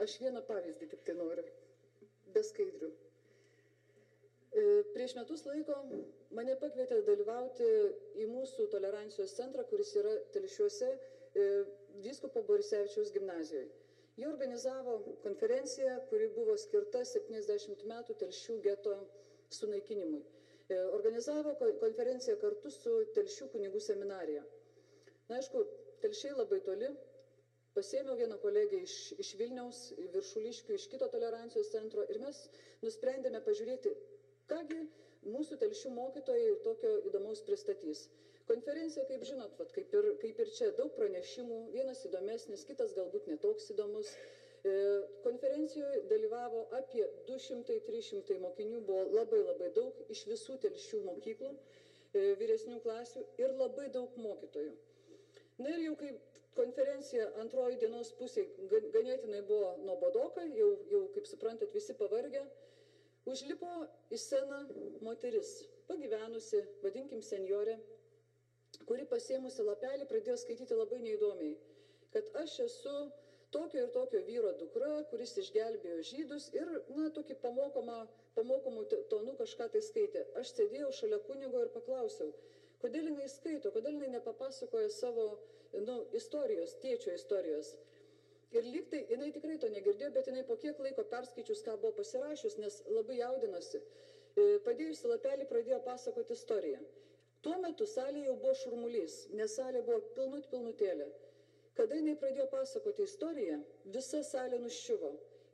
Aš vieną pavyzdį tik tai noriu, be skaidrių. Prieš metus laiko mane pakvietė dalyvauti į mūsų tolerancijos centrą, kuris yra Telšiuose, vyskupo Borisevičiaus gimnazijoje. Jie organizavo konferenciją, kuri buvo skirta 70 metų Telšių geto sunaikinimui. Organizavo konferenciją kartu su Telšių kunigų seminarija. Na, aišku, Telšiai labai toli. Pasėmiau vieną kolegę iš Vilniaus, Viršuliškių, iš kito tolerancijos centro ir mes nusprendėme pažiūrėti, kągi mūsų Telšių mokytojai tokio įdomaus pristatys. Konferencija, kaip žinot, kaip ir čia, daug pranešimų, vienas įdomesnis, kitas galbūt netoks įdomus. Konferencijoje dalyvavo apie 200-300 mokinių, buvo labai daug iš visų Telšių mokyklų, vyresnių klasių ir labai daug mokytojų. Na ir jau kaip konferencija antroji dienos pusė ganėtinai buvo nuobodoka, jau kaip suprantat, visi pavargę, užlipo į sceną moteris, pagyvenusi, vadinkim senjorė, kuri pasėmusi lapelį pradėjo skaityti labai neįdomiai, kad aš esu tokio ir tokio vyro dukra, kuris išgelbėjo žydus ir, na, tokį pamokomų tonų kažką tai skaitė. Aš sėdėjau šalia kunigo ir paklausiau, kodėl jinai skaito, kodėl jinai nepapasakoja savo istorijos, tėčio istorijos. Ir lyg tai jinai tikrai to negirdėjo, bet jinai po kiek laiko perskaičius, ką buvo pasirašius, nes labai jaudinosi, padėjusi lapelį pradėjo pasakoti istoriją. Tuo metu salėje jau buvo šurmulys, nes salė buvo pilnutėlė. Kada jinai pradėjo pasakoti istoriją, visa salė nuščiuvo.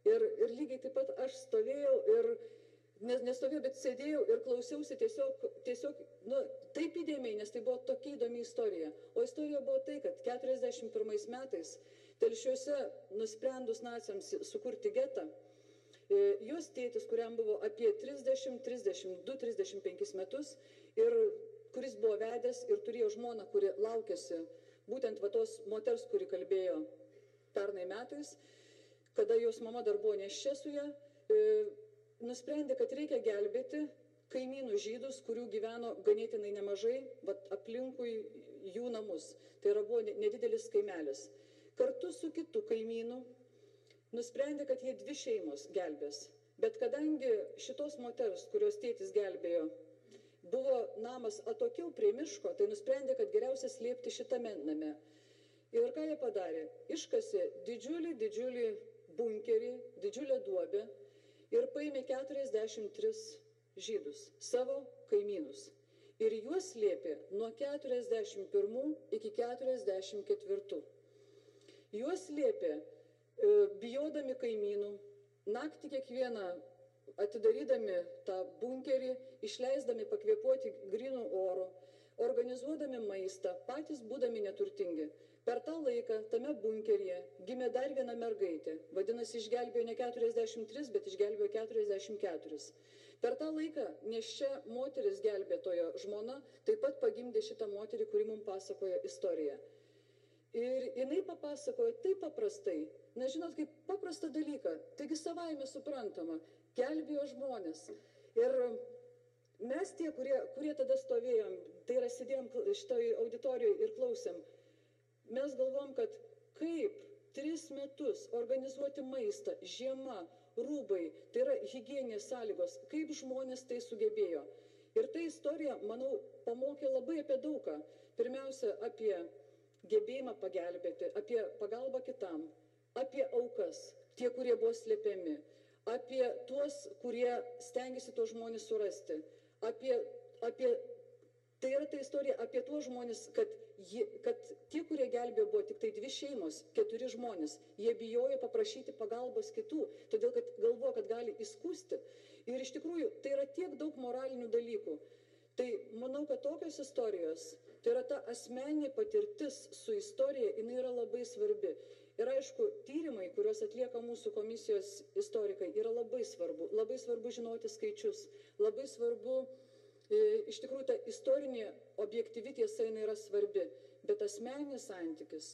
Ir lygiai taip pat aš stovėjau ir nestovėjau, bet sėdėjau ir klausiausi tiesiog taip įdėmiai, nes tai buvo tokia įdomi istorija. O istorija buvo tai, kad 41 metais Telšiuose nusprendus naciams sukurti getą, jos tėtis, kuriam buvo apie 30, 32, 35 metus ir kuris buvo vedęs ir turėjo žmoną, kuri laukėsi būtent tos moters, kuri kalbėjo pernai metais, kada jos mama dar buvo neščia su ją, nusprendė, kad reikia gelbėti kaimynų žydus, kurių gyveno ganėtinai nemažai, aplinkui jų namus. Tai buvo nedidelis kaimelis. Kartu su kitu kaimynu nusprendė, kad jie 2 šeimos gelbės. Bet kadangi šitos moters, kurios tėtis gelbėjo, buvo namas atokiau prie miško, tai nusprendė, kad geriausia slėpti šitame name. Ir ką jie padarė? Iškasė didžiulį bunkerį, didžiulę duobę, ir paėmė 43 žydus, savo kaimynus. Ir juos slėpė nuo 41 iki 44. Juos slėpė bijodami kaimynų, naktį kiekvieną atidarydami tą bunkerį, išleisdami pakvėpuoti grynų oro, organizuodami maistą, patys būdami neturtingi. Per tą laiką tame bunkeryje gimė dar viena mergaitė, vadinasi, išgelbėjo ne 43, bet išgelbėjo 44. Per tą laiką neščia moteris gelbėtojo žmona taip pat pagimdė šitą moterį, kuri mums pasakojo istoriją. Ir jinai papasakojo taip paprastai, nežinot, kaip paprastą dalyką, taigi savaime suprantama, gelbėjo žmonės. Ir mes tie, kurie tada stovėjom, tai yra sėdėjom šitoj auditorijoje ir klausėm, mes galvom, kad kaip 3 metus organizuoti maistą, žiema, rūbai, tai yra higieninės sąlygos, kaip žmonės tai sugebėjo. Ir ta istorija, manau, pamokė labai apie daugą. Pirmiausia, apie gebėjimą pagelbėti, apie pagalbą kitam, apie aukas, tie, kurie buvo slėpiami, apie tuos, kurie stengiasi tuos žmonės surasti, tai yra ta istorija apie tuos žmonės, kad tie, kurie gelbėjo, buvo tik tai 2 šeimos, 4 žmonės. Jie bijojo paprašyti pagalbos kitų, todėl kad galvojo, kad gali įskųsti. Ir iš tikrųjų, tai yra tiek daug moralinių dalykų. Tai manau, kad tokios istorijos, tai yra ta asmeninė patirtis su istorija, jinai yra labai svarbi. Ir aišku, tyrimai, kuriuos atlieka mūsų komisijos istorikai, yra labai svarbu. Labai svarbu žinoti skaičius, labai svarbu. Iš tikrųjų, ta istorinė objektyvi tiesa yra svarbi, bet asmeninis santykis,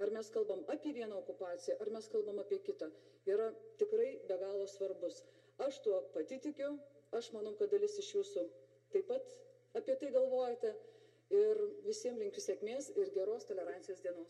ar mes kalbam apie vieną okupaciją, ar mes kalbam apie kitą, yra tikrai be galo svarbus. Aš tuo pati tikiu, aš manau, kad dalis iš jūsų taip pat apie tai galvojate ir visiems linkiu sėkmės ir geros tolerancijos dienos.